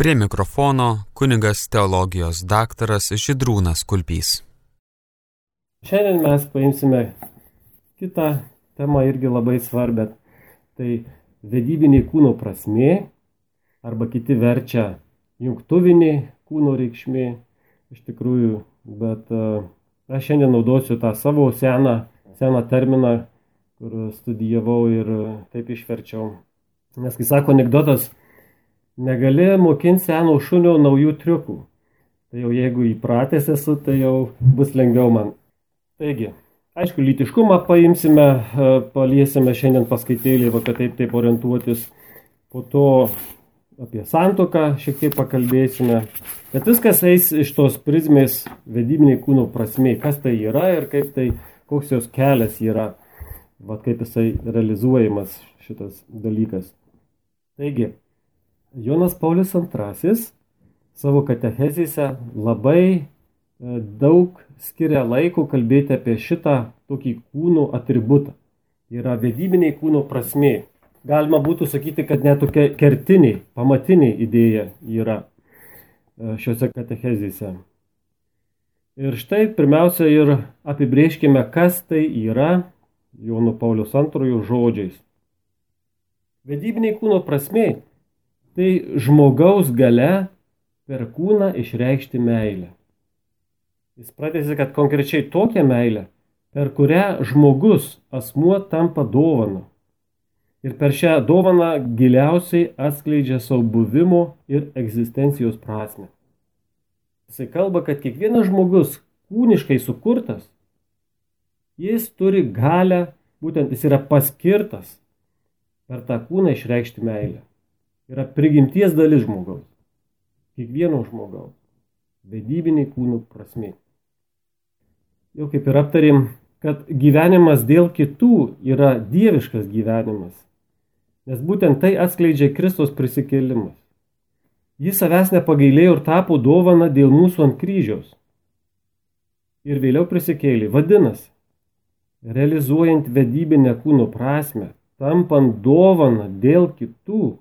Prie mikrofono kunigas teologijos daktaras Žydrūnas Kulpys. Šiandien mes paimsime kitą temą irgi labai svarbią. Tai vedybinė kūno prasmė, arba kiti verčia jungtuvinė kūno reikšmė iš tikrųjų, bet aš šiandien naudosiu tą savo seną terminą, kur studijavau ir taip išverčiau. Nes, kai sako anekdotas, negali mokinti seno šunio naujų triukų. Tai jau jeigu įpratęs esu, tai jau bus lengviau man. Taigi, aišku, lytiškumą paimsime, paliesime šiandien paskaitėlį, kad taip orientuotis. Po to apie santuoką šiek tiek pakalbėsime. Bet viskas eis iš tos prizmės vedybiniai kūno prasmė, kas tai yra ir koks jos kelias yra, kaip jisai realizuojamas šitas dalykas. Taigi, Jonas Paulius II savo katechezėse labai daug skiria laiko kalbėti apie šitą tokį kūno atributą. Tai yra vedybiniai kūno prasmė. Galima būtų sakyti, kad net tokia kertinė, pamatinė idėja yra šiuose katechezėse. Ir štai pirmiausia ir apibrėžkime, kas tai yra Jono Pauliaus II žodžiais. Vedybiniai kūno prasmė tai žmogaus galia per kūną išreikšti meilę. Jis pratęsia, kad konkrečiai tokią meilę, per kurią žmogus, asmuo tampa dovana. Ir per šią dovaną giliausiai atskleidžia savo buvimo ir egzistencijos prasmę. Jisai kalba, kad kiekvienas žmogus kūniškai sukurtas, jis turi galią, būtent jis yra paskirtas per tą kūną išreikšti meilę. Yra prigimties dalis žmogaus. Kiekvieno žmogaus. Vedybiniai kūnų prasmė. Jau kaip ir aptarėm, kad gyvenimas dėl kitų yra dieviškas gyvenimas. Nes būtent tai atskleidžia Kristus prisikėlimas. Jis savęs nepagailėjo ir tapo dovana dėl mūsų ant kryžiaus. Ir vėliau prisikėlė. Vadinasi, realizuojant vedybinę kūno prasmę, tampant dovana dėl kitų,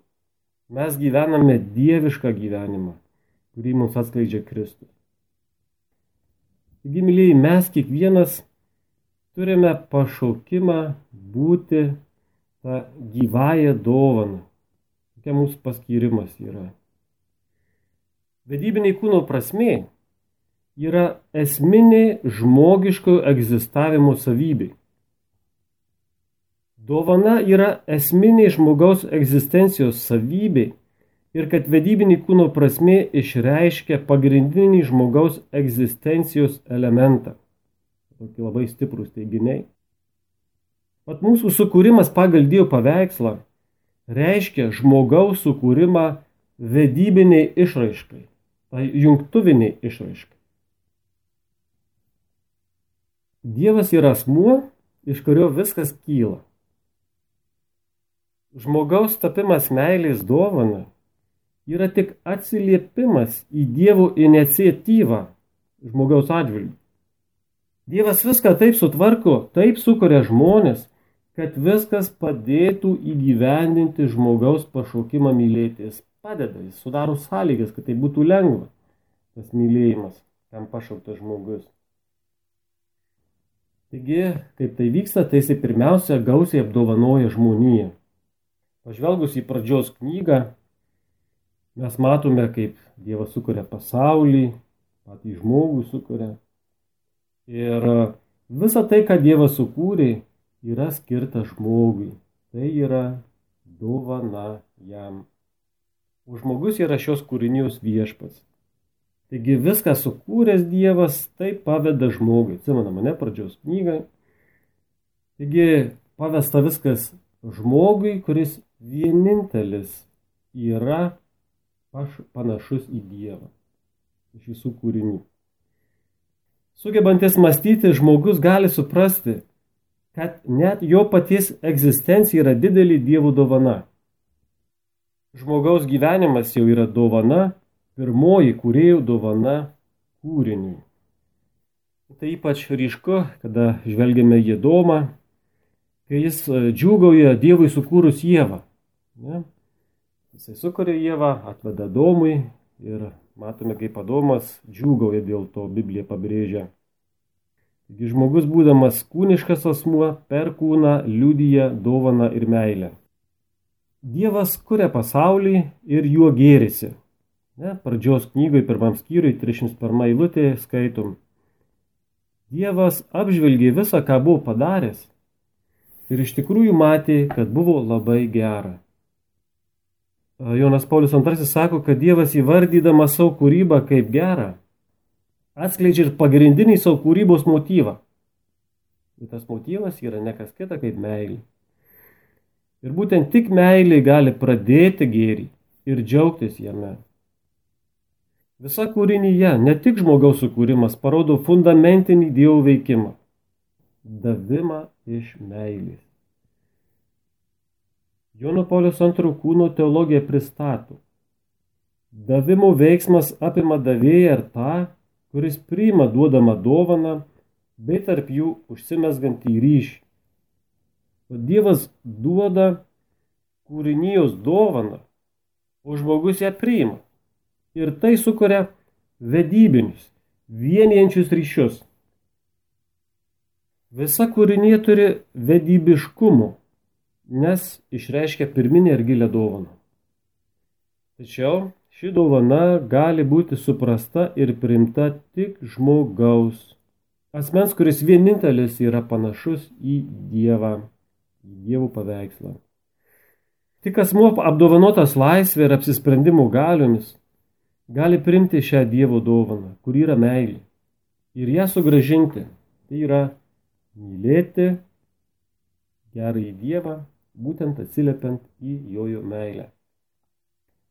mes gyvename dievišką gyvenimą, kurį mums atskleidžia Kristus. Taigi, mylėjai, mes kiekvienas turime pašaukimą būti tą gyvąją dovaną. Tokia mūsų paskyrimas yra. Vedybiniai kūno prasmė yra esminė žmogiško egzistavimo savybė. Dovana yra esminė žmogaus egzistencijos savybė ir kad vedybinį kūno prasmė išreiškia pagrindinį žmogaus egzistencijos elementą. Tokie labai stiprūs teiginiai. Pat mūsų sukūrimas pagal Dievo paveikslą reiškia žmogaus sukūrimą vedybiniai išraiškai, tai jungtuviniai išraiškai. Dievas yra asmuo, iš kurio viskas kyla. Žmogaus tapimas meilės dovana yra tik atsiliepimas į Dievo iniciatyvą žmogaus atžvilgiu. Dievas viską taip sutvarko, taip sukuria žmonės, kad viskas padėtų įgyvendinti žmogaus pašaukimą mylėti. Jis padeda, jis sudaro sąlygas, kad tai būtų lengva, tas mylėjimas, kam pašauktas žmogus. Taigi, kaip tai vyksta, tai jis pirmiausia gausiai apdovanoja žmoniją. Pažvelgus į pradžios knygą, mes matome, kaip Dievas sukuria pasaulį, patį žmogų sukuria. Ir visa tai, ką Dievas sukūrė, yra skirta žmogui. Tai yra dovana jam. O žmogus yra šios kūrinijos viešpats. Taigi viską sukūręs Dievas taip paveda žmogui. Atsimena mane pradžios knygą. Taigi pavesta viskas žmogui, kuris vienintelis yra panašus į Dievą iš visų kūrinių. Sugebantis mąstyti, žmogus gali suprasti, kad net jo paties egzistencija yra didelė Dievo dovana. Žmogaus gyvenimas jau yra dovana, pirmoji kūrėjų dovana kūriniui. Tai ypač ryšku, kada žvelgiame į Adomą, kai jis džiūgauja Dievui sukūrus Ievą. Ne? Jisai sukuria Ievą, atveda Adomui ir matome, kaip Adomas džiūgauja dėl to, Biblija pabrėžia. Taigi žmogus, būdamas kūniškas asmuo, per kūną liudija dovaną ir meilę. Dievas kuria pasaulį ir juo gėrisi. Pradžios knygoje, 1 skyriui, 31 eilutė skaitom. Dievas apžvelgė visą, ką buvo padaręs ir iš tikrųjų matė, kad buvo labai gera. Jonas Paulius II sako, kad Dievas įvardydamas savo kūrybą kaip gerą, atskleidžia ir pagrindinį savo kūrybos motyvą. Ir tas motyvas yra ne kas kita kaip meilė. Ir būtent tik meilė gali pradėti gėrį ir džiaugtis jame. Visa kūrinyje, ne tik žmogaus sukūrimas, parodo fundamentinį Dievo veikimą. Davimą iš meilės. Jono Pauliaus II kūno teologija pristato. Davimo veiksmas apima davėją ir tą, kuris priima duodamą dovaną, bei tarp jų užsimezgantį ryšį. O Dievas duoda kūrinijos dovaną, o žmogus ją priima. Ir tai sukuria vedybinius, vienijančius ryšius. Visa kūrinija turi vedybiškumo, nes išreiškia pirminę ir gilią dovaną. Tačiau ši dovana gali būti suprasta ir priimta tik žmogaus, asmens, kuris vienintelis yra panašus į Dievą, į Dievo paveikslą. Tik asmuo apdovanotas laisvė ir apsisprendimo galiomis gali priimti šią Dievo dovaną, kur yra meilė, ir ją sugrąžinti. Tai yra mylėti gerąjį Dievą, būtent atsiliepiant į jo meilę.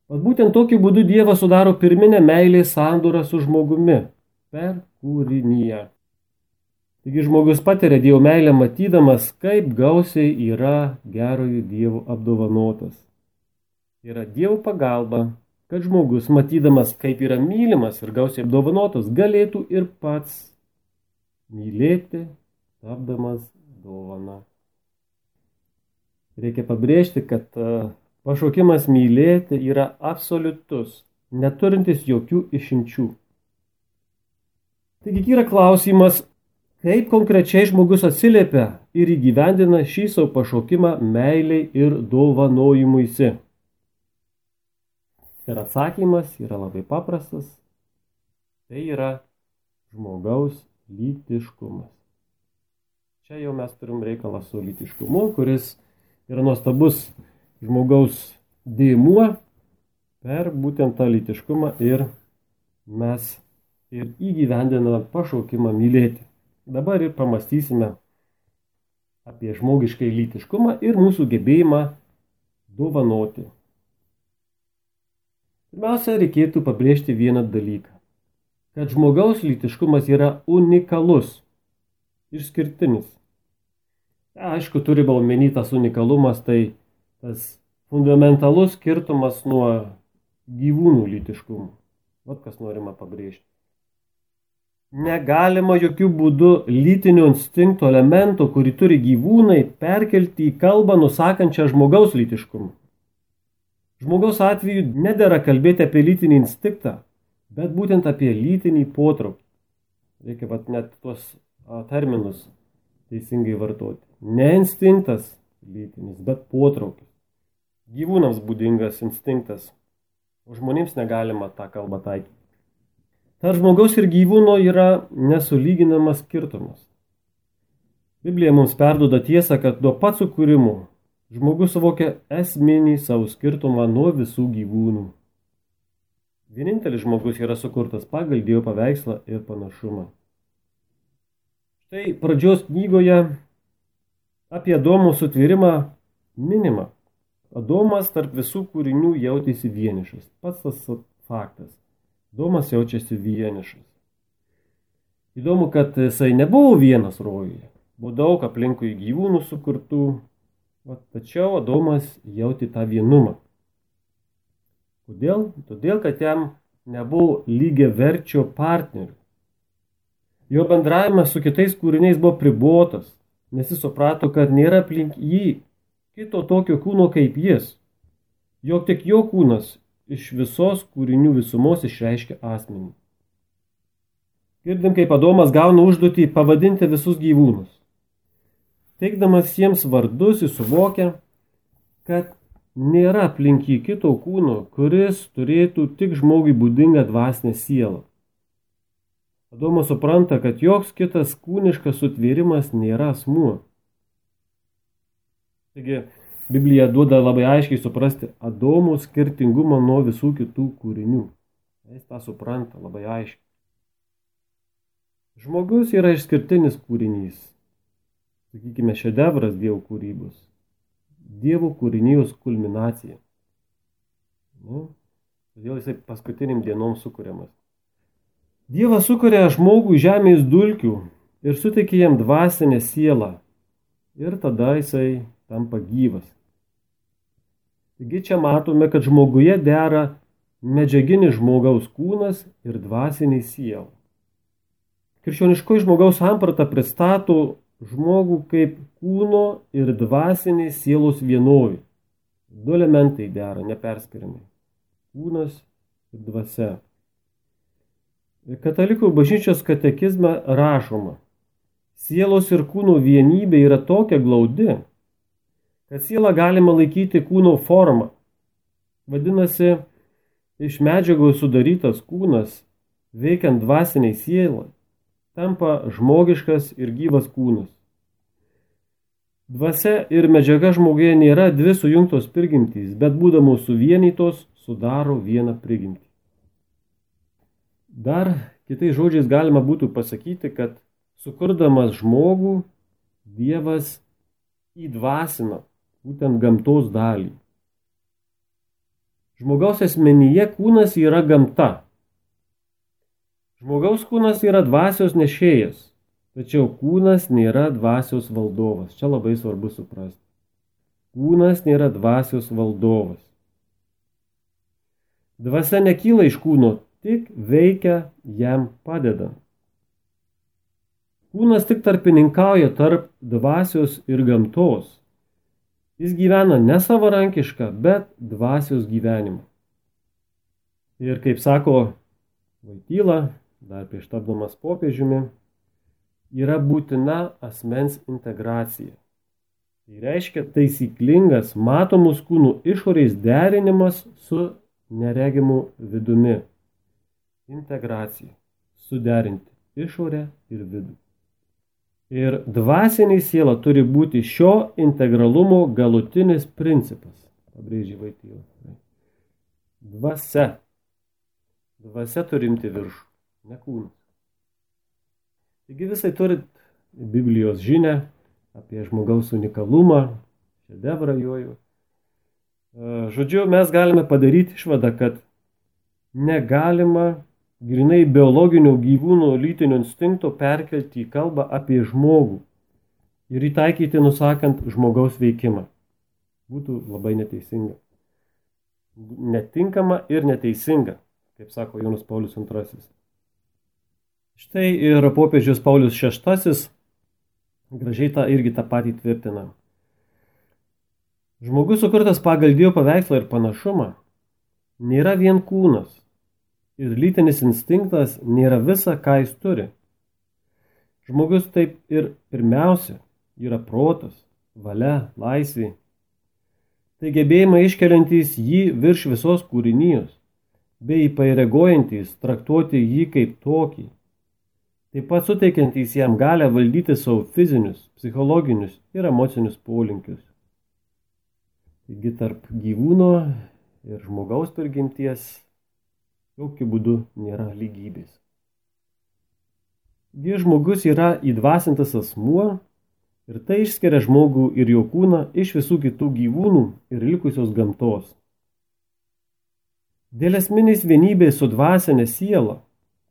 Vat būtent tokiu būdu Dievas sudaro pirminę meilės sandorą su žmogumi per kūriniją. Taigi žmogus patiria Dievo meilę matydamas, kaip gausiai yra gerojo Dievo apdovanotas. Yra Dievo pagalba, kad žmogus, matydamas, kaip yra mylimas ir gausiai apdovanotas, galėtų ir pats mylėti, tapdamas dovaną. Reikia pabrėžti, kad pašaukimas mylėti yra absoliutus, neturintis jokių išimčių. Taigi yra klausimas, kaip konkrečiai žmogus atsiliepia ir įgyvendina šį savo pašaukimą meiliai ir dovanojimuisi. Ir atsakymas yra labai paprastas. Tai yra žmogaus lytiškumas. Čia jau mes turim reikalą su lytiškumu, kuris yra nuostabus žmogaus dėmuo. Per būtent tą lytiškumą ir mes ir įgyvendiname pašaukimą mylėti. Dabar ir pamastysime apie žmogiškai lytiškumą ir mūsų gebėjimą dovanoti. Pirmiausia, reikėtų pabrėžti vieną dalyką, kad žmogaus lytiškumas yra unikalus, išskirtinis. Aišku, turi omeny tas unikalumas, tai tas fundamentalus skirtumas nuo gyvūnų lytiškumų. Vat kas norima pabrėžti. Negalima jokių būdų lytinio instinkto elemento, kurį turi gyvūnai, perkelti į kalbą nusakančią žmogaus lytiškumą. Žmogaus atveju nedera kalbėti apie lytinį instinktą, bet būtent apie lytinį potraukį. Reikia net tuos terminus teisingai vartoti. Ne instinktas lytinis, bet potraukis. Gyvūnams būdingas instinktas, o žmonėms negalima tą kalbą taikyti. Tarp žmogaus ir gyvūno yra nesulyginamas skirtumas. Biblija mums perduoda tiesą, kad nuo pat sukūrimo žmogus suvokia esminį savo skirtumą nuo visų gyvūnų. Vienintelis žmogus yra sukurtas pagal Dievo paveikslą ir panašumą. Štai pradžios knygoje apie Adomo sutvėrimą minima. Adomas tarp visų kūrinių jautėsi vienišas. Pats tas faktas. Adomas jaučiasi vienišas. Įdomu, kad jisai nebuvo vienas rojuje. Buvo daug aplinkui gyvūnų sukurtų, tačiau Adomas jautė tą vienumą. Kodėl? Todėl, kad jam nebuvo lygiaverčio partnerių. Jo bendravimas su kitais kūriniais buvo pribotas, nes jis suprato, kad nėra aplink jį kito tokio kūno kaip jis. jog tik jo kūnas iš visos kūrinių visumos išreiškia asmenį. Girdim, kaip Adomas gauna užduotį pavadinti visus gyvūnus. Teikdamas jiems vardus, jis suvokia, kad nėra aplink jį kito kūno, kuris turėtų tik žmogui būdingą dvasinę sielą. Adomas supranta, kad joks kitas kūniškas sutvėrimas nėra asmuo. Taigi, Biblija duoda labai aiškiai suprasti Adomo skirtingumą nuo visų kitų kūrinių. Jis tą supranta labai aiškiai. Žmogus yra išskirtinis kūrinys. Sakykime, šedevras Dievo kūrybos. Dievo kūrinijos kulminacija. Todėl jisai paskutiniam dienom sukuriamas. Dievas sukuria žmogų žemės dulkių ir suteikia jam dvasinę sielą. Ir tada jisai tampa gyvas. Taigi čia matome, kad žmoguje dera medžiaginis žmogaus kūnas ir dvasiniai siela. Krikščioniškoji žmogaus samprata pristato žmogų kaip kūno ir dvasinės sielos vienovį. Du elementai dera neperskiriamai. Kūnas ir dvasia. Katalikų bažnyčios katekizme rašoma, sielos ir kūno vienybė yra tokia glaudi, kad sielą galima laikyti kūno formą. Vadinasi, iš medžiagos sudarytas kūnas, veikiant dvasiniai sielai, tampa žmogiškas ir gyvas kūnas. Dvasia ir medžiaga žmoguje nėra dvi sujungtos prigimtys, bet būdamos suvienytos sudaro vieną prigimtį. Dar kitais žodžiais galima būtų pasakyti, kad sukurdamas žmogų, Dievas įdvasina būtent gamtos dalį. Žmogaus asmenyje kūnas yra gamta. Žmogaus kūnas yra dvasios nešėjas, tačiau kūnas nėra dvasios valdovas. Čia labai svarbu suprasti. Kūnas nėra dvasios valdovas. Dvasia nekyla iš kūno, tik veikia jam padedant. Kūnas tik tarpininkauja tarp dvasios ir gamtos. Jis gyvena ne savarankišką, bet dvasios gyvenimą. Ir kaip sako Voityla, dar prieš tapdamas popiežiumi, yra būtina asmens integracija. Tai reiškia taisyklingas matomus kūnų išorės derinimas su neregimu vidumi. Integracija. Suderinti išorę ir vidų. Ir dvasinė siela turi būti šio integralumo galutinis principas. Pabrėžė Voityla. Dvasia. Dvasia turi imti viršų, ne kūnas. Taigi visai turit Biblijos žinią apie žmogaus unikalumą, šedevrą jojo. Žodžiu, mes galime padaryti išvadą, kad negalima grinai biologinio gyvūno lytinio instinkto perkelti į kalbą apie žmogų ir įtaikyti nusakant žmogaus veikimą. Būtų labai neteisinga. Netinkama ir neteisinga, kaip sako Jonas Paulius II. Štai ir popiežius Paulius VI gražiai irgi tą patį tvirtina. Žmogus sukurtas pagal Dievo paveikslą ir panašumą nėra vien kūnas ir lytinis instinktas nėra visa, ką jis turi. Žmogus taip ir pirmiausia yra protas, valia, laisvė. Tai gebėjimai iškeliantys jį virš visos kūrinijos, bei įpareigojantys traktuoti jį kaip tokį. Taip pat suteikiantys jam galę valdyti savo fizinius, psichologinius ir emocinius polinkius. Taigi tarp gyvūno ir žmogaus prigimties jokių būdų nėra lygybės. Žmogus yra įdvasintas asmuo ir tai išskiria žmogų ir jo kūną iš visų kitų gyvūnų ir likusios gamtos. Dėl esminės vienybės su dvasinė siela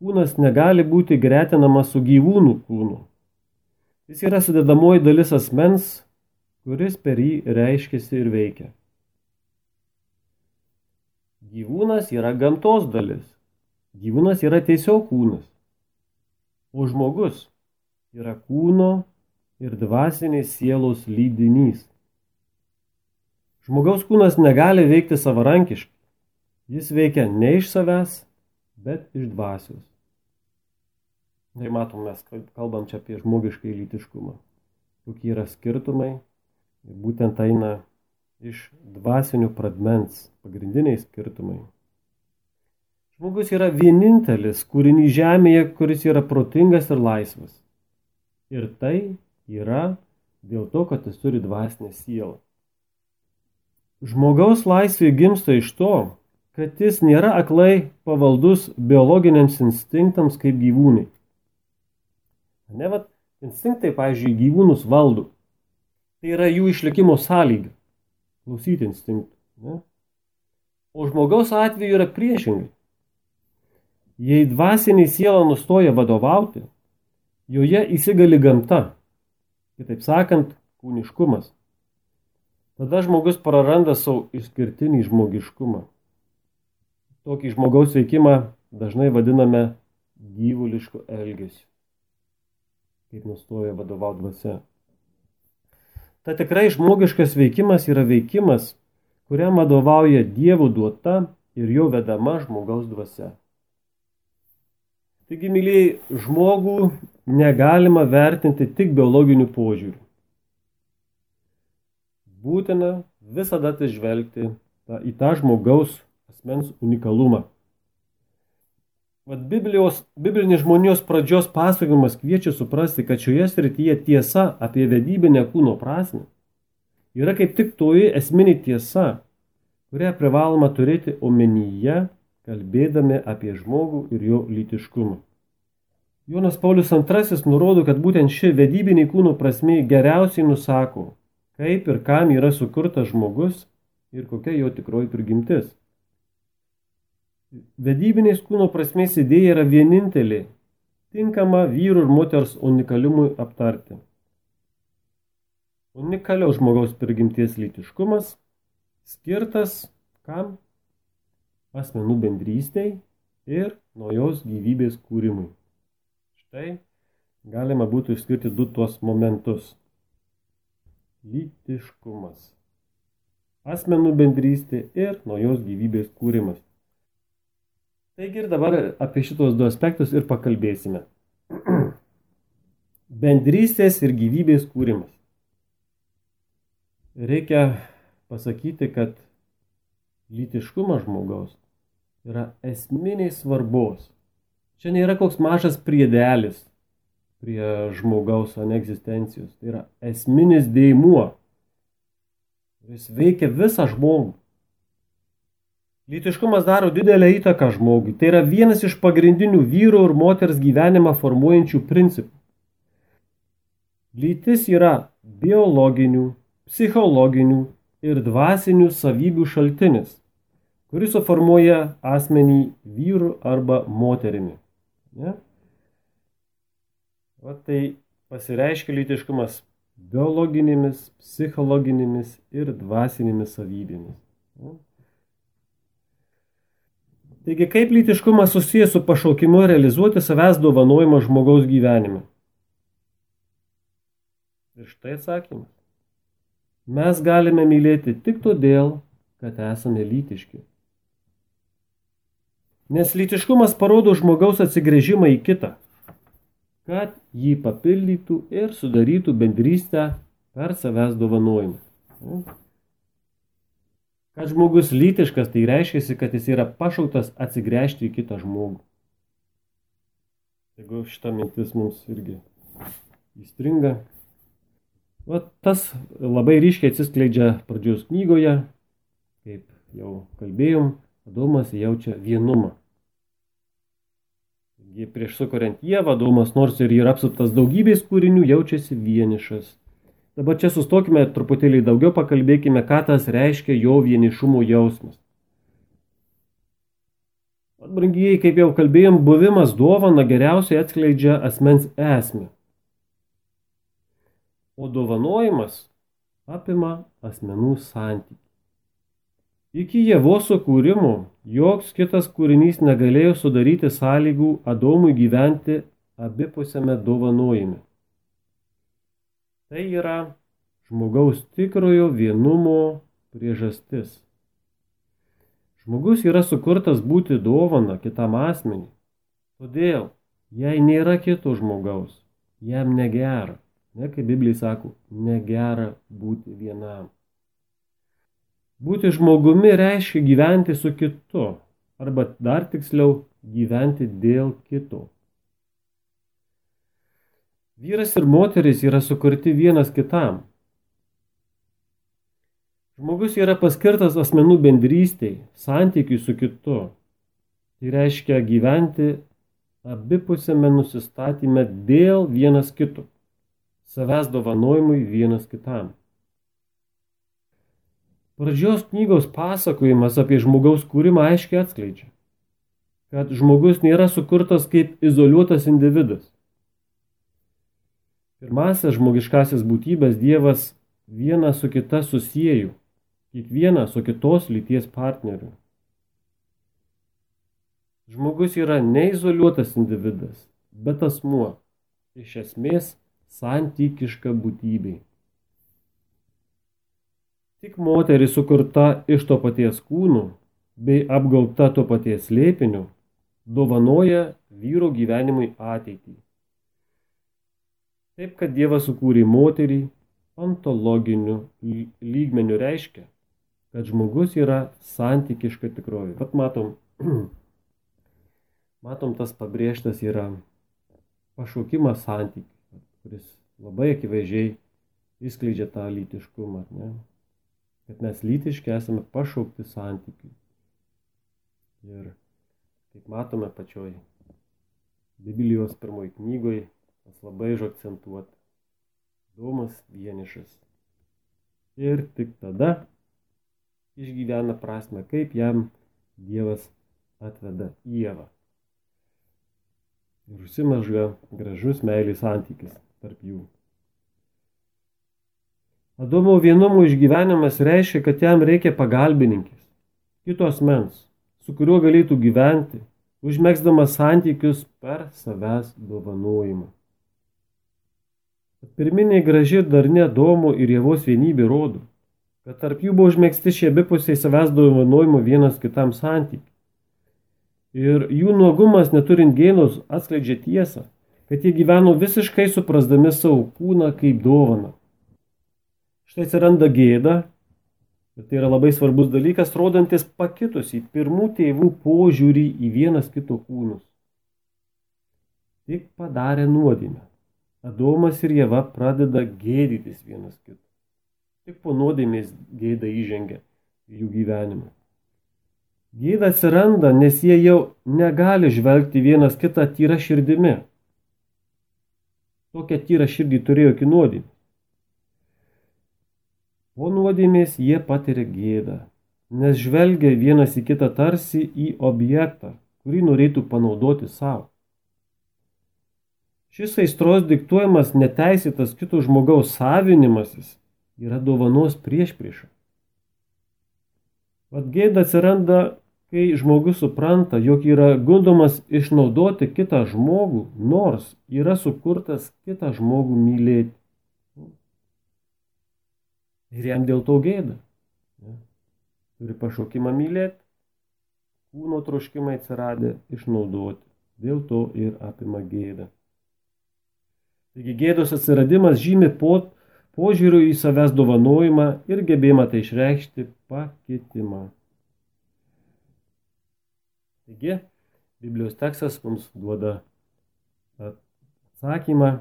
kūnas negali būti gretinamas su gyvūnų kūnu. Jis yra sudedamoji dalis asmens, kuris per jį reiškiasi ir veikia. Gyvūnas yra gamtos dalis. Gyvūnas yra tiesiog kūnas. O žmogus yra kūno ir dvasinės sielos lydinys. Žmogaus kūnas negali veikti savarankiškai. Jis veikia ne iš savęs, bet iš dvasios. Tai matom, mes kalbam čia apie žmogiškai lytiškumą. Kokie yra skirtumai. Ir būtent eina iš dvasinių pradmens pagrindiniai skirtumai. Žmogus yra vienintelis kūrinys žemėje, kuris yra protingas ir laisvas. Ir tai yra dėl to, kad jis turi dvasinę sielą. Žmogaus laisvė gimsta iš to, kad jis nėra aklai pavaldus biologiniams instinktams kaip gyvūnai. Instinktai, pavyzdžiui, gyvūnus valdo. Tai yra jų išlikimo sąlyga. Klausyti instinktų. Ne? O žmogaus atveju yra priešingai. Jei dvasinė siela nustoja vadovauti, joje įsigali gamta. Kitaip sakant, kūniškumas. Tada žmogus praranda savo išskirtinį žmogiškumą. Tokį žmogaus veikimą dažnai vadiname gyvulišku elgesiu. Kaip nustoja vadovauti dvasia. Ta tikrai žmogiškas veikimas yra veikimas, kuriam vadovauja Dievo duota ir jo vedama žmogaus dvasia. Taigi, mylėjai, žmogų negalima vertinti tik biologiniu požiūriu. Būtina visada atsižvelgti į tą žmogaus asmens unikalumą. Biblinis žmonijos pradžios pasakojimas kviečia suprasti, kad šioje srityje tiesa apie vedybinę kūno prasmę yra kaip tik toji esminė tiesa, kurią privaloma turėti omenyje, kalbėdami apie žmogų ir jo lytiškumą. Jonas Paulius II nurodo, kad būtent ši vedybinė kūno prasmė geriausiai nusako, kaip ir kam yra sukurtas žmogus ir kokia jo tikroji prigimtis. Vedybinės kūno prasmės idėja yra vienintelė, tinkama vyrų ir moters unikaliumui aptarti. Unikaliaus žmogaus prigimties lytiškumas skirtas kam? Asmenų bendrystei ir naujos gyvybės kūrimui. Štai galima būtų išskirti du tuos momentus. Lytiškumas. Asmenų bendrystė ir naujos gyvybės kūrimas. Taigi ir dabar apie šitos du aspektus ir pakalbėsime. Bendrystės ir gyvybės kūrimas. Reikia pasakyti, kad lytiškumas žmogaus yra esminiai svarbos. Čia nėra koks mažas priedelis prie žmogaus egzistencijos. Tai yra esminis dėmuo. Jis veikia visą žmogų. Lytiškumas daro didelę įtaką žmogui. Tai yra vienas iš pagrindinių vyro ir moters gyvenimą formuojančių principų. Lytis yra biologinių, psichologinių ir dvasinių savybių šaltinis, kuris suformuoja asmenį vyru arba moterimi. Ne? Tai pasireiškia lytiškumas biologinėmis, psichologinėmis ir dvasinėmis savybėmis. Ne? Taigi, kaip lytiškumas susijęs su pašaukimu realizuoti savęs dovanojimą žmogaus gyvenime? Ir štai atsakymas. Mes galime mylėti tik todėl, kad esame lytiški. Nes lytiškumas parodo žmogaus atsigręžimą į kitą, kad jį papildytų ir sudarytų bendrystę per savęs dovanojimą. Kad žmogus lytiškas, tai reiškia, kad jis yra pašauktas atsigręžti į kitą žmogų. Jeigu šita mintis mums irgi įstringa. Tas labai ryškiai atsiskleidžia pradžios knygoje, kaip jau kalbėjom, Adomas jaučia vienumą. Prieš sukuriant Ievą, Adomas nors ir yra apsuptas daugybės kūrinių, jaučiasi vienišas. Dabar čia sustokime truputėlį daugiau, pakalbėkime, ką tas reiškia jo vienišumo jausmas. Brangieji, kaip jau kalbėjom, buvimas dovana geriausiai atskleidžia asmens esmę. O dovanojimas apima asmenų santykį. Iki Ievos sukūrimo joks kitas kūrinys negalėjo sudaryti sąlygų Adomui gyventi abipusiame dovanojime. Tai yra žmogaus tikrojo vienumo priežastis. Žmogus yra sukurtas būti dovana kitam asmeniui. Todėl, jei nėra kito žmogaus, jam negera. Ne, kaip Biblija sako, negera būti vienam. Būti žmogumi reiškia gyventi su kitu, arba dar tiksliau gyventi dėl kito. Vyras ir moteris yra sukurti vienas kitam. Žmogus yra paskirtas asmenų bendrystei, santykiui su kitu. Tai reiškia gyventi abipusėme nusistatyme dėl vienas kito, savęs dovanojimui vienas kitam. Pradžios knygos pasakojimas apie žmogaus kūrimą aiškiai atskleidžia, kad žmogus nėra sukurtas kaip izoliuotas individas. Pirmąsias žmogiškasias būtybės Dievas vieną su kita susiejo, kiekvieną su kitos lyties partneriu. Žmogus yra neizoliuotas individas, bet asmuo, iš esmės santykiška būtybė. Tik moteris sukurta iš to paties kūno bei apgaubta to paties slėpiniu dovanoja vyro gyvenimui ateitį. Taip, kad Dievas sukūrė moterį ontologiniu lygmeniu reiškia, kad žmogus yra santykiška tikrovė. Vat matom tas pabrėžtas yra pašaukimas santykių, kuris labai akivaizdžiai išskleidžia tą lytiškumą. Ne? Kad mes lytiški esame pašaukti santykių. Ir kaip matome pačioj Biblijos pirmoji knygoje, tas labai užakcentuota. Domas vienišas. Ir tik tada išgyvena prasme, kaip jam Dievas atveda Ievą. Ir užsimezga gražus meilės santykis tarp jų. Adomo vienumo išgyvenimas reiškia, kad jam reikia pagalbininkės, kito asmens, su kuriuo galėtų gyventi, užmegzdamas santykius per savęs dovanojimą. Pirminė graži ir darni Adomo ir Ievos vienybė rodo, kad tarp jų buvo užmegzti šie abipusiai savęs dovanojimo vienas kitam santykiai. Ir jų nuogumas neturint gėdos atskleidžia tiesą, kad jie gyveno visiškai suprasdami savo kūną kaip dovaną. Štai atsiranda gėda, ir tai yra labai svarbus dalykas, rodantis pakitusį pirmų tėvų požiūrį į vienas kito kūnus. Tik padarė nuodėmę. Adomas ir Ieva pradeda gėdytis vienas kito. Tik po nuodėmės gėda įžengia į jų gyvenimą. Gėda atsiranda, nes jie jau negali žvelgti vienas kitą tyra širdimi. Tokią tyrą širdį turėjo iki nuodėmės. Po nuodėmės jie patiria gėdą, nes žvelgia vienas į kitą tarsi į objektą, kurį norėtų panaudoti savo. Šis aistros diktuojamas neteisėtas kito žmogaus savinimasis yra dovanos priešprieša. Vat gėda atsiranda, kai žmogus supranta, jog yra gundomas išnaudoti kitą žmogų, nors yra sukurtas kitą žmogų mylėti. Ir jam dėl to gėda. Turi pašaukimą mylėti, kūno troškimai atsiradę išnaudoti. Dėl to ir apima gėda. Taigi gėdos atsiradimas žymi požiūriu į savęs dovanojimą ir gebėjimą tai išreikšti pakitimą. Taigi, Biblijos tekstas mums duoda atsakymą,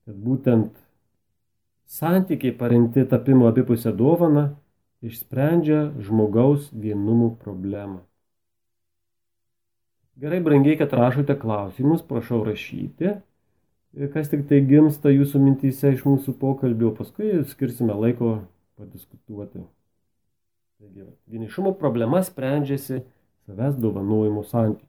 kad būtent santykiai paremti tapimo abipusę dovaną išsprendžia žmogaus vienumų problemą. Gerai, brangiai, kad rašote klausimus, prašau rašyti. Kas tik tai gimsta jūsų mintyse iš mūsų pokalbio, paskui skirsime laiko padiskutuoti. Taigi, vienišumo problema sprendžiasi savęs dovanojimo santykiu.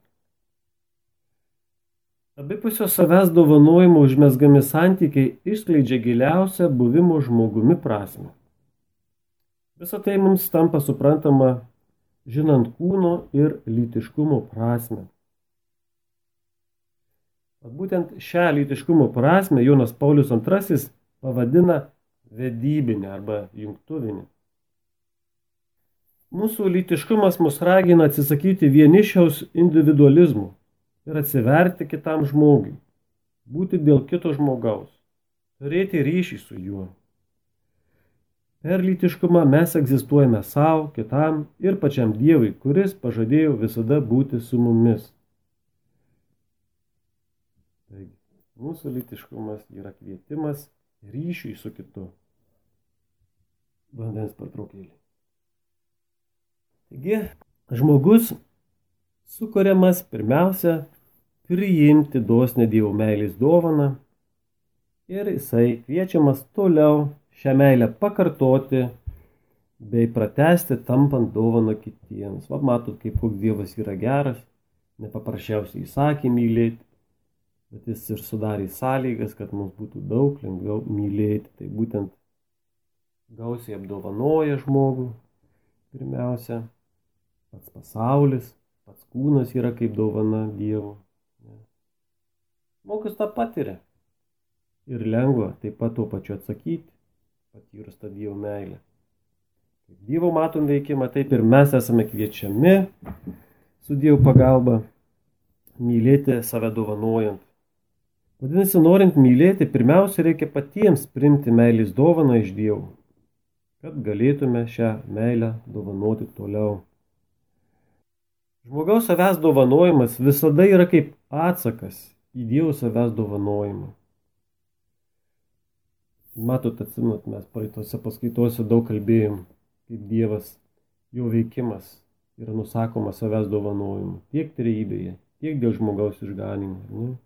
Abipusio savęs dovanojimo užmezgami santykiai išskleidžia giliausią buvimo žmogumi prasmę. Visą tai mums tampa suprantama, žinant kūno ir lytiškumo prasmę. Būtent šią lytiškumo prasmę Jonas Paulius II pavadina vedybinę arba jungtuvinę. Mūsų lytiškumas mus ragina atsisakyti vienišiaus individualizmų ir atsiverti kitam žmogui, būti dėl kito žmogaus, turėti ryšį su juo. Per lytiškumą mes egzistuojame savo, kitam ir pačiam Dievui, kuris pažadėjo visada būti su mumis. Taigi, mūsų lytiškumas yra kvietimas ryšiui su kitu. Vandens pertraukėlė. Taigi, žmogus sukuriamas pirmiausia priimti dosnią Dievo meilės dovaną ir jisai kviečiamas toliau šią meilę pakartoti bei pratęsti, tampant dovaną kitiems. Va, matot, kaip koks Dievas yra geras, nepaprasčiausiai įsakė mylėti, bet jis ir sudarė sąlygas, kad mums būtų daug lengviau mylėti. Tai būtent gausiai apdovanoja žmogų pirmiausia, pats pasaulis, pats kūnas yra kaip dovana Dievo. Žmogus tą patiria ir lengva taip pat tuo pačiu atsakyti, patyrus tą Dievo meilę. Kaip Dievo matom veikimą, taip ir mes esame kviečiami su Dievo pagalba mylėti save dovanojant. Vadinasi, norint mylėti, pirmiausia reikia patiems priimti meilės dovaną iš Dievo, kad galėtume šią meilę dovanoti toliau. Žmogaus savęs dovanojimas visada yra kaip atsakas į Dievo savęs dovanojimą. Matot, atsimenat, mes praeitose paskaitose daug kalbėjom, kaip Dievas, jo veikimas yra nusakomas savęs dovanojimu, tiek trejybėje, tiek dėl žmogaus išganimo.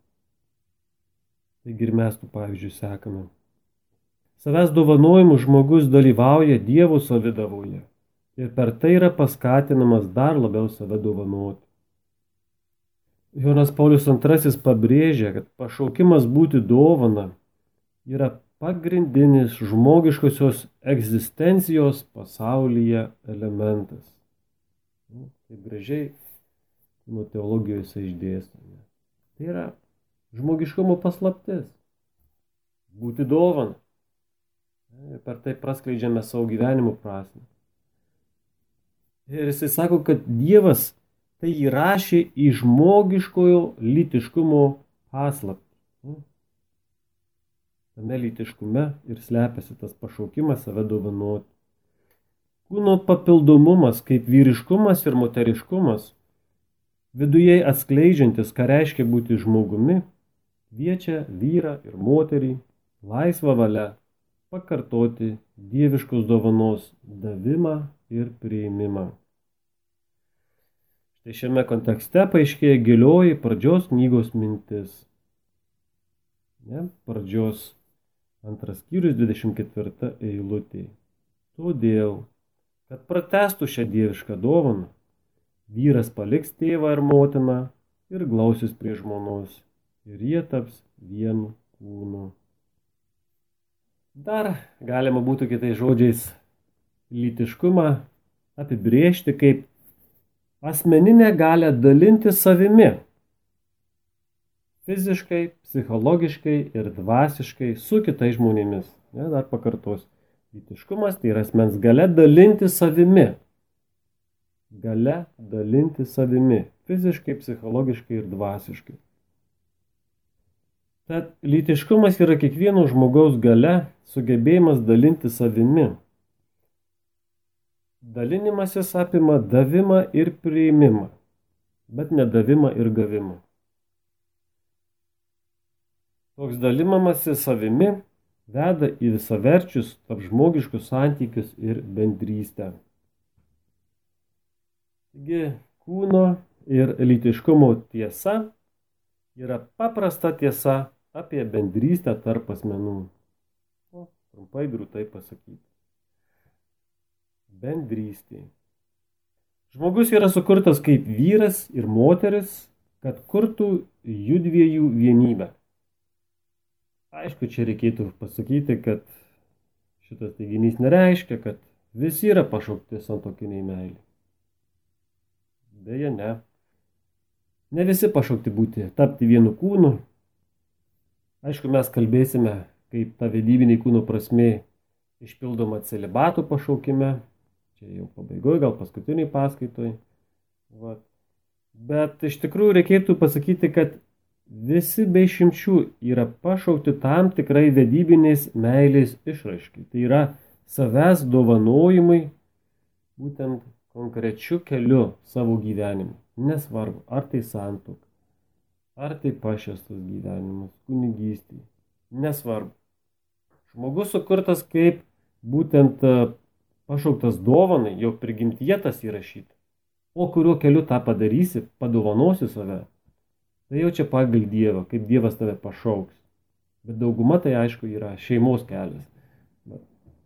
Taigi ir mes tų pavyzdžių sekame. Savęs dovanojimu žmogus dalyvauja Dievo savidavoje ir per tai yra paskatinamas dar labiau save dovanoti. Jonas Paulius II pabrėžia, kad pašaukimas būti dovana yra pagrindinis žmogiškosios egzistencijos pasaulyje elementas. Taip gražiai nuo teologijos išdėstome. Tai yra žmogiškumo paslaptis. Būti dovana. Ir per tai praskleidžiame savo gyvenimo prasmę. Ir jisai sako, kad Dievas tai įrašė į žmogiškojo lytiškumo paslaptį. Tame lytiškume ir slepiasi tas pašaukimas save dovanoti. Kūno papildomumas kaip vyriškumas ir moteriškumas, viduje atskleidžiantis, ką reiškia būti žmogumi, kviečia vyrą ir moterį laisvą valią pakartoti dieviškos dovanos davimą ir priėmimą. Štai šiame kontekste paaiškėja gilioji pradžios knygos mintis. Pradžios 2 skyrius 24 eilutė. Todėl, kad pratęstų šią dievišką dovaną, vyras paliks tėvą ir motiną ir glausis prie žmonos, ir jie taps vienu kūnu. Dar galima būtų kitais žodžiais lytiškumą apibrėžti kaip asmeninę galią dalinti savimi. Fiziškai, psichologiškai ir dvasiškai su kitais žmonėmis. Dar pakartosiu. Lytiškumas tai yra asmens galia dalinti savimi. Galia dalinti savimi. Fiziškai, psichologiškai ir dvasiškai. Tad lytiškumas yra kiekvieno žmogaus galia, sugebėjimas dalinti savimi. Dalinimasis apima davimą ir priėmimą, bet ne davimą ir gavimą. Toks dalinimasis savimi veda į visaverčius tarpžmogiškus santykius ir bendrystę. Taigi, kūno ir lytiškumo tiesa yra paprasta tiesa apie bendrystę tarp asmenų. Trumpai drūtai pasakyti. Bendrystė. Žmogus yra sukurtas kaip vyras ir moteris, kad kurtų judviejų vienybę. Aišku, čia reikėtų pasakyti, kad šitas teiginys nereiškia, kad visi yra pašaukti santuokiniai meilei. Deja, ne. Ne visi pašaukti tapti vienu kūnu. Aišku, mes kalbėsime, kaip ta vedybinė kūno prasmė išpildoma celibato pašaukime. čia jau pabaigoje, gal paskutiniai paskaitoj. Vat. Bet iš tikrųjų reikėtų pasakyti, kad visi be išimčių yra pašaukti tam tikrai vedybinės meilės išraiškai. Tai yra savęs dovanojimai būtent konkrečiu keliu savo gyvenimu. Nesvarbu, ar tai santuoka, ar tai pašvęstas gyvenimas, kunigystė. Nesvarbu. Žmogus sukurtas kaip būtent pašauktas dovanai, jau prigimtyje tas įrašyta. O kuriuo keliu tą padarysi, padovanosi save, tai jau čia pagal Dievą, kaip Dievas tave pašauks. Bet dauguma tai aišku yra šeimos kelias.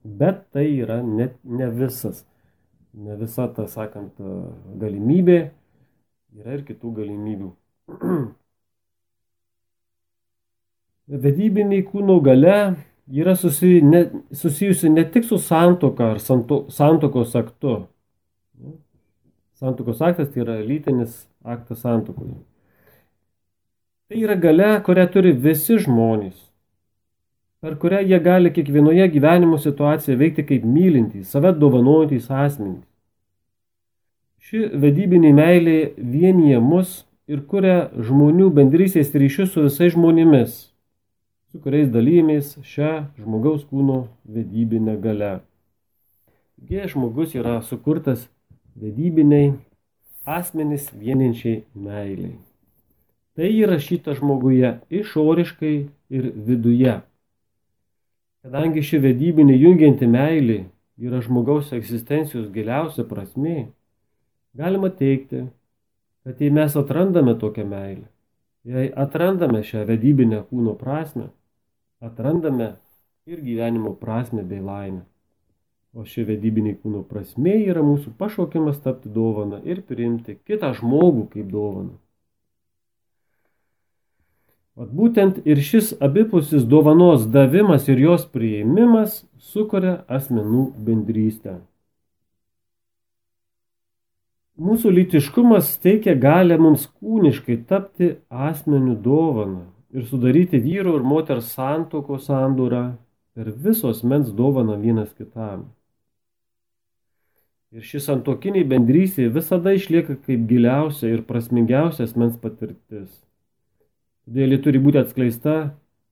Bet tai yra ne visas. Ne visa, ta sakant, galimybė. Yra ir kitų galimybių. Vedybiniai kūno galia yra susijusi ne tik su santuoka ar santuokos aktu. Santuokos aktas tai yra lytinis aktas santuokoje. Tai yra galia, kurią turi visi žmonės, per kurią jie gali kiekvienoje gyvenimo situacijoje veikti kaip mylintys, save dovanojantys asmenys. Ši vedybinė meilė vienyje mus ir kuria žmonių bendrystės ryšius su visais žmonėmis, su kuriais dalymės šią žmogaus kūno vedybinę galią. Taigi žmogus yra sukurtas vedybiniai asmenys vieninčiai meiliai. Tai įrašyta žmoguje išoriškai ir viduje. Kadangi ši vedybinė jungianti meilė yra žmogaus egzistencijos giliausia prasmė, galima teigti, kad jei mes atrandame tokią meilę, jei atrandame šią vedybinę kūno prasmę, atrandame ir gyvenimo prasmę bei laimę. O ši vedybinė kūno prasmė yra mūsų pašaukimas tapti dovana ir priimti kitą žmogų kaip dovaną. Vat būtent ir šis abipusis dovanos davimas ir jos priėmimas sukuria asmenų bendrystę. Mūsų lytiškumas teikia galę mums kūniškai tapti asmenių dovaną ir sudaryti vyro ir moters santuokos sandūrą per viso asmens dovaną vienas kitam. Ir ši santuokinė bendrystė visada išlieka kaip giliausia ir prasmingiausia asmens patirtis. Todėl ji turi būti atskleista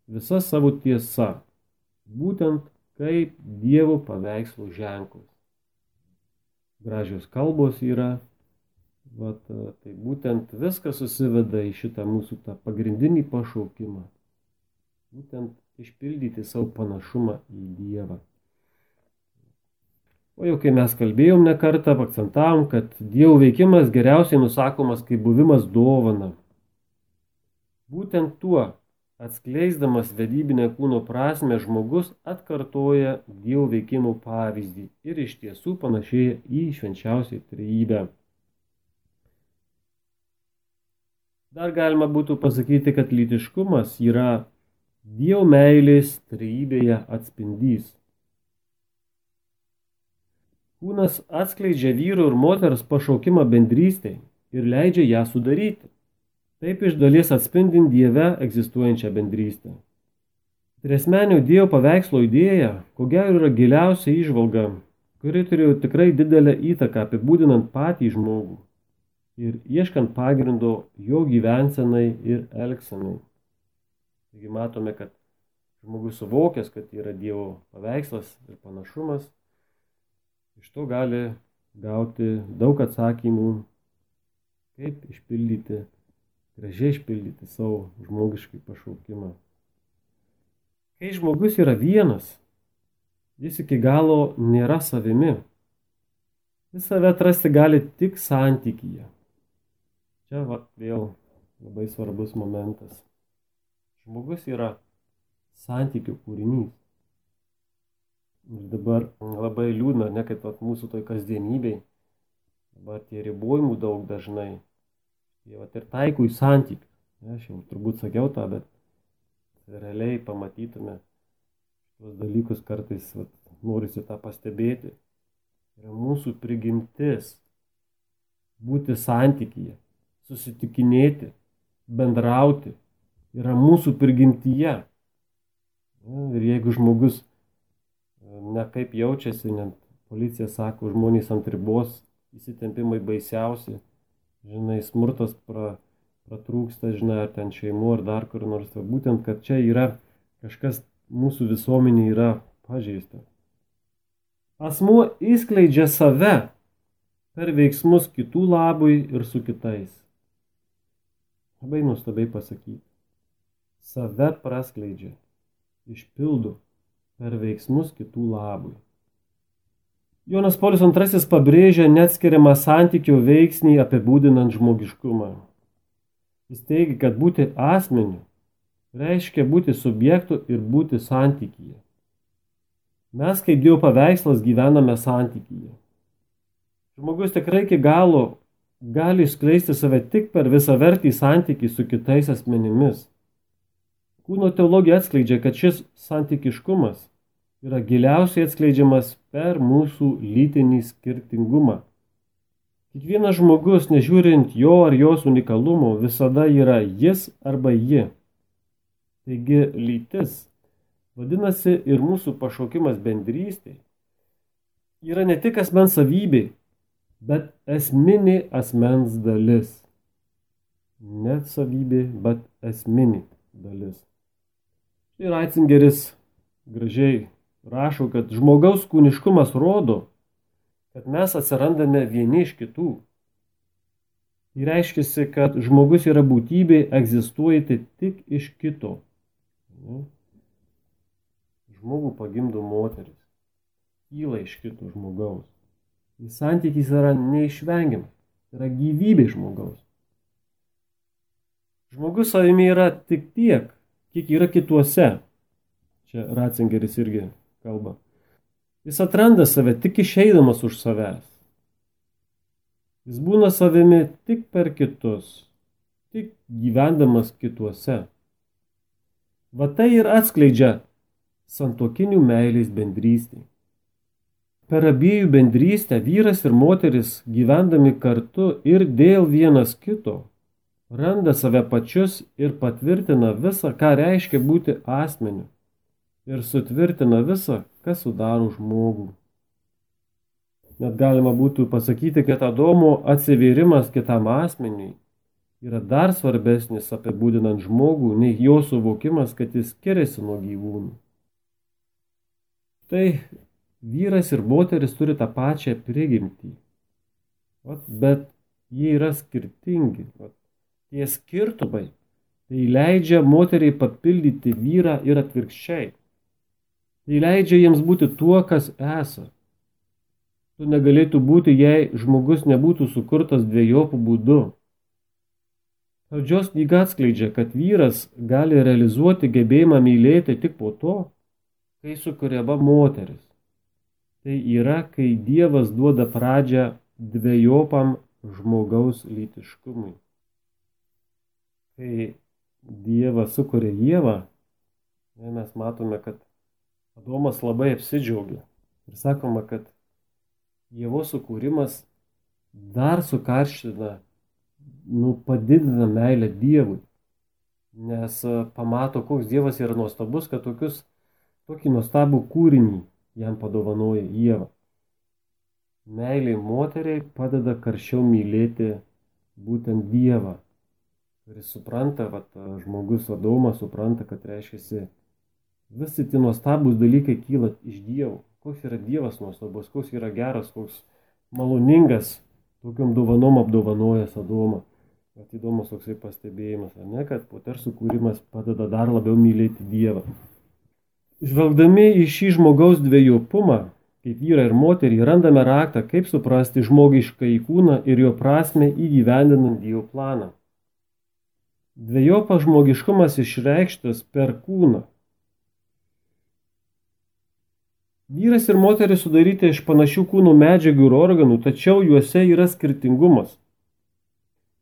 visa savo tiesa, būtent kaip Dievo paveikslų ženklas. Gražios kalbos yra, tai būtent viskas susiveda į šitą mūsų tą pagrindinį pašaukimą. Būtent išpildyti savo panašumą į Dievą. O jau kai mes kalbėjom ne kartą, akcentavom, kad Dievo veikimas geriausiai nusakomas kaip buvimas dovana. Būtent tuo, atskleisdamas vedybinę kūno prasmę, žmogus atkartoja Dievo veikimo pavyzdį ir iš tiesų panašėja į švenčiausią trejybę. Dar galima būtų pasakyti, kad lytiškumas yra Dievo meilės trejybėje atspindys. Kūnas atskleidžia vyro ir moters pašaukimą bendrystei ir leidžia ją sudaryti. Taip iš dalies atspindint Dieve egzistuojančią bendrystę. Triasmenio Dievo paveikslo idėja, ko gero, yra giliausia įžvalga, kuri turėjo tikrai didelę įtaką apibūdinant patį žmogų ir ieškant pagrindo jo gyvensenai ir elgsenai. Taigi matome, kad žmogus suvokęs, kad yra Dievo paveikslas ir panašumas, iš to gali gauti daug atsakymų, kaip gražiai išpildyti savo žmogiškai pašaukimą. Kai žmogus yra vienas, jis iki galo nėra savimi. Jis save atrasti gali tik santykyje. Čia vėl labai svarbus momentas. Žmogus yra santykių kūrinys. Ir dabar labai liūdna, ne kaip mūsų toj kasdienybei. Dabar tie ribojimų daug dažnai. Jie ir taiko į santykius. Aš jau turbūt sakiau tą, bet realiai pamatytume tuos dalykus kartais, norisi tą pastebėti. Yra mūsų prigimtis būti santykyje, susitikinėti, bendrauti. Yra mūsų prigimtyje. Ir jeigu žmogus nekaip jaučiasi, net policija sako, žmonės ant ribos, įsitempimai baisiausi, žinai, smurtas pratrūksta, žinai, ar ten šeimų, ar dar kur nors. Būtent, kad čia yra kažkas mūsų visuomenė yra pažeista. Asmuo įskleidžia save per veiksmus kitų labui ir su kitais. Labai nuostabiai pasakyti. Save praskleidžia, išpildo per veiksmus kitų labui. Jonas Paulius II pabrėžia neatskiriamą santykio veiksnį apibūdinant žmogiškumą. Jis teigia, kad būti asmeniu reiškia būti subjektu ir būti santykyje. Mes kaip Dievo paveikslas gyvename santykyje. Žmogus tikrai iki galo gali išskleisti save tik per visavertį santykį su kitais asmenimis. Kūno teologija atskleidžia, kad šis santykiškumas yra giliausiai atskleidžiamas per mūsų lytinį skirtingumą. Kiekvienas žmogus, nežiūrint jo ar jos unikalumo, visada yra jis arba ji. Taigi lytis, vadinasi ir mūsų pašaukimas bendrystė, yra ne tik asmens savybė, bet esminė asmens dalis. Net savybė, bet esminė dalis. Ir Ratzingeris gražiai rašo, kad žmogaus kūniškumas rodo, kad mes atsirandame vieni iš kitų. Tai reiškia, kad žmogus yra būtybė egzistuojanti tik iš kito. Žmogų pagimdo moteris, kyla iš kito žmogaus. Jis santykis yra neišvengiamas, yra gyvybė žmogaus. Žmogus savimi yra tik tiek, kiek yra kituose. Čia Ratzingeris irgi kalba. Jis atranda save tik išeidamas už savęs. Jis būna savimi tik per kitus, tik gyvendamas kituose. Va tai ir atskleidžia santuokinių meilės bendrystė. Per abiejų bendrystę vyras ir moteris gyvendami kartu ir dėl vienas kito randa save pačius ir patvirtina visą, ką reiškia būti asmeniu, ir sutvirtina visą, kas sudaro žmogų. Net galima būtų pasakyti, kad Adomo atsivėrimas kitam asmeniui yra dar svarbesnis apibūdinant žmogų, nei jo suvokimas, kad jis skiriasi nuo gyvūnų. Tai vyras ir moteris turi tą pačią prigimtį, bet jie yra skirtingi. Tie skirtumai tai leidžia moteriai papildyti vyrą ir atvirkščiai. Tai leidžia jiems būti tuo, kas esa. Tu negalėtų būti, jei žmogus nebūtų sukurtas dviejopų būdu. Pradžios knyga atskleidžia, kad vyras gali realizuoti gebėjimą mylėti tik po to, kai sukuriama moteris. Tai yra, kai Dievas duoda pradžią dviejopam žmogaus lytiškumui. Kai Dievas sukuria Ievą, mes matome, kad Adomas labai apsidžiaugia. Ir sakoma, kad Ievos sukūrimas dar sukarština, padidina meilę Dievui. Nes pamato, koks Dievas yra nuostabus, kad tokį nuostabų kūrinį jam padovanoja Ieva. Meilė moteriai padeda karščiau mylėti būtent Dievą. Kuris supranta, žmogus Adomas supranta, kad reiškia, visi tie nuostabūs dalykai kyla iš Dievo. Koks yra Dievas nuostabus, koks yra geras, koks maloningas, tokiom dovanom apdovanojęs Adomą. Įdomus toksai pastebėjimas, kad moters sukūrimas padeda dar labiau mylėti Dievą. Žvelgdami į šį žmogaus dvejopumą, kaip vyrą ir moterį, randame raktą, kaip suprasti žmogišką kūną ir jo prasmę įgyvendinant Dievo planą. Dvejopas žmogiškumas išreikštas per kūną. Vyras ir moteris sudaryti iš panašių kūnų medžiagų ir organų, tačiau juose yra skirtingumas,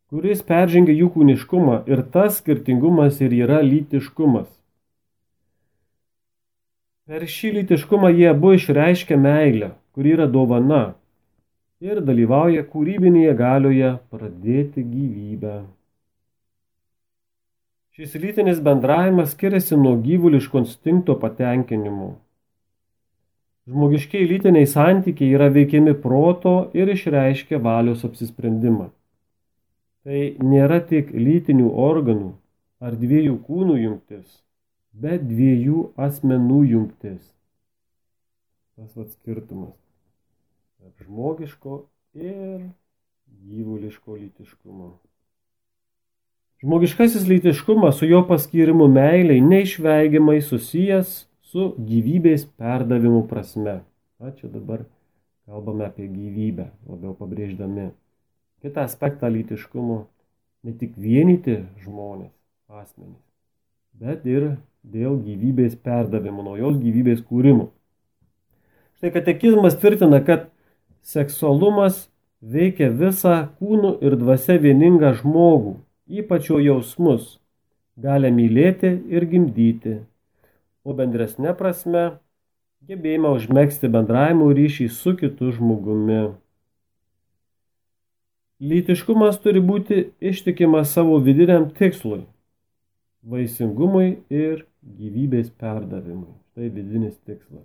kuris peržengia jų kūniškumą, ir tas skirtingumas ir yra lytiškumas. Per šį lytiškumą jie abu išreiškia meilę, kuri yra dovana, ir dalyvauja kūrybinėje galioje pradėti gyvybę. Šis lytinis bendravimas skiriasi nuo gyvuliško instinkto patenkinimo. Žmogiškiai lytiniai santykiai yra veikiami proto ir išreiškia valios apsisprendimą. Tai nėra tik lytinių organų ar dviejų kūnų jungtis, bet dviejų asmenų jungtis. Tas skirtumas tarp žmogiško ir gyvuliško lytiškumo. Žmogiškasis lytiškumas su jo paskyrimu meiliai neišvengiamai susijęs su gyvybės perdavimu prasme. Čia dabar kalbame apie gyvybę, labiau pabrėždami kitą aspektą lytiškumo, ne tik vienyti žmonės, asmenys, bet ir dėl gyvybės perdavimo, naujos gyvybės kūrimo. Štai katekizmas tvirtina, kad seksualumas veikia visą kūnu ir dvasia vieningą žmogų, ypač jo jausmus, gali mylėti ir gimdyti, o bendresne prasme gebėjimą užmegzti bendravimo ryšį su kitu žmogumi. Lytiškumas turi būti ištikimas savo vidiniam tikslui – vaisingumui ir gyvybės perdavimui. Tai vidinis tikslas.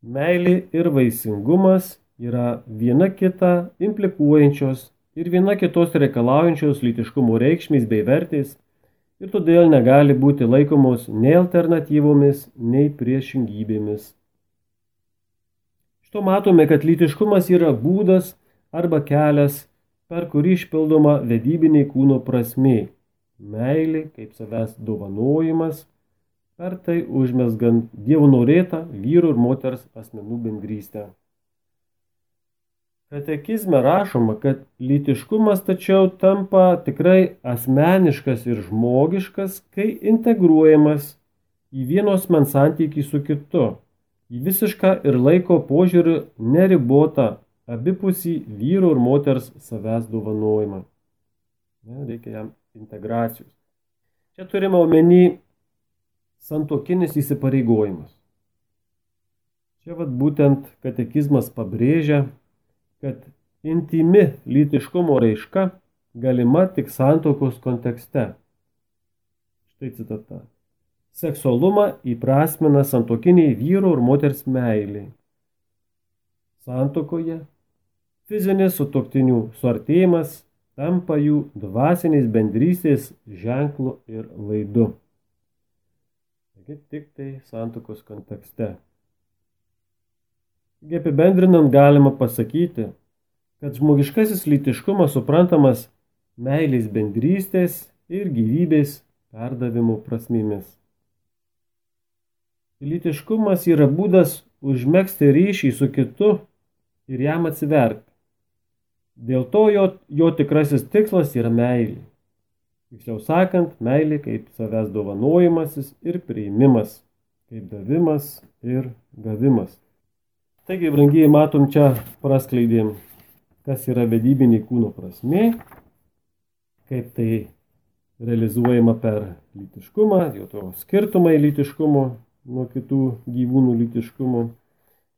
Meilė ir vaisingumas yra viena kitą implikuojančios ir viena kitos reikalaujančios lytiškumo reikšmės bei vertės ir todėl negali būti laikomos nei alternatyvomis, nei priešingybėmis. Šito matome, kad lytiškumas yra būdas arba kelias, per kurį išpildoma vedybinė kūno prasmė, meilė kaip savęs dovanojimas, per tai užmezgant Dievo norėtą vyro ir moters asmenų bendrystę. Katekizme rašoma, kad lytiškumas tačiau tampa tikrai asmeniškas ir žmogiškas, kai integruojamas į vieno asmens santykį su kitu, į visišką ir laiko požiūrį neribotą abipusį vyro ir moters savęs dovanojimą. Reikia jam integracijos. Čia turime omeny santuokinis įsipareigojimas. Čia būtent katekizmas pabrėžia, kad intimi lytiškumo raiška galima tik santuokos kontekste. Štai citata. Seksualumą įprasmina santuokiniai vyro ir moters meilė. Santuokoje fizinis sutuoktinių suartėjimas tampa jų dvasinės bendrystės ženklu ir vaidu. Taigi tik tai santuokos kontekste. Apibendrinant galima pasakyti, kad žmogiškasis lytiškumas suprantamas meilės bendrystės ir gyvybės perdavimo prasmėmis. Lytiškumas yra būdas užmegzti ryšį su kitu ir jam atsiverti. Dėl to jo tikrasis tikslas yra meilė. Tiksliau sakant, meilė kaip savęs dovanojimasis ir priėmimas, kaip davimas ir gavimas. Taigi, brangieji, matom čia praskleidėm, kas yra vedybinė kūno prasmė, kaip tai realizuojama per lytiškumą, jo to skirtumai lytiškumo nuo kitų gyvūnų lytiškumo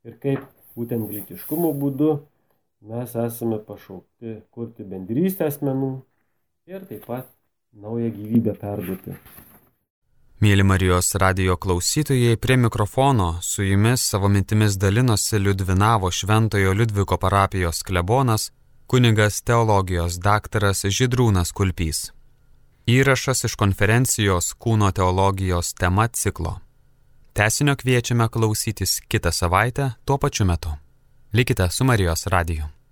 ir kaip būtent lytiškumo būdu mes esame pašaukti kurti bendrystę asmenų ir taip pat naują gyvybę perduoti. Mėly Marijos radijo klausytojai, prie mikrofono su jumis savo mintimis dalinosi Liudvinavo Šventojo Liudviko parapijos klebonas, kunigas teologijos daktaras Žydrūnas Kulpys. Įrašas iš konferencijos Kūno teologijos tema ciklo. Tęsinio kviečiame klausytis kitą savaitę tuo pačiu metu. Likite su Marijos radiju.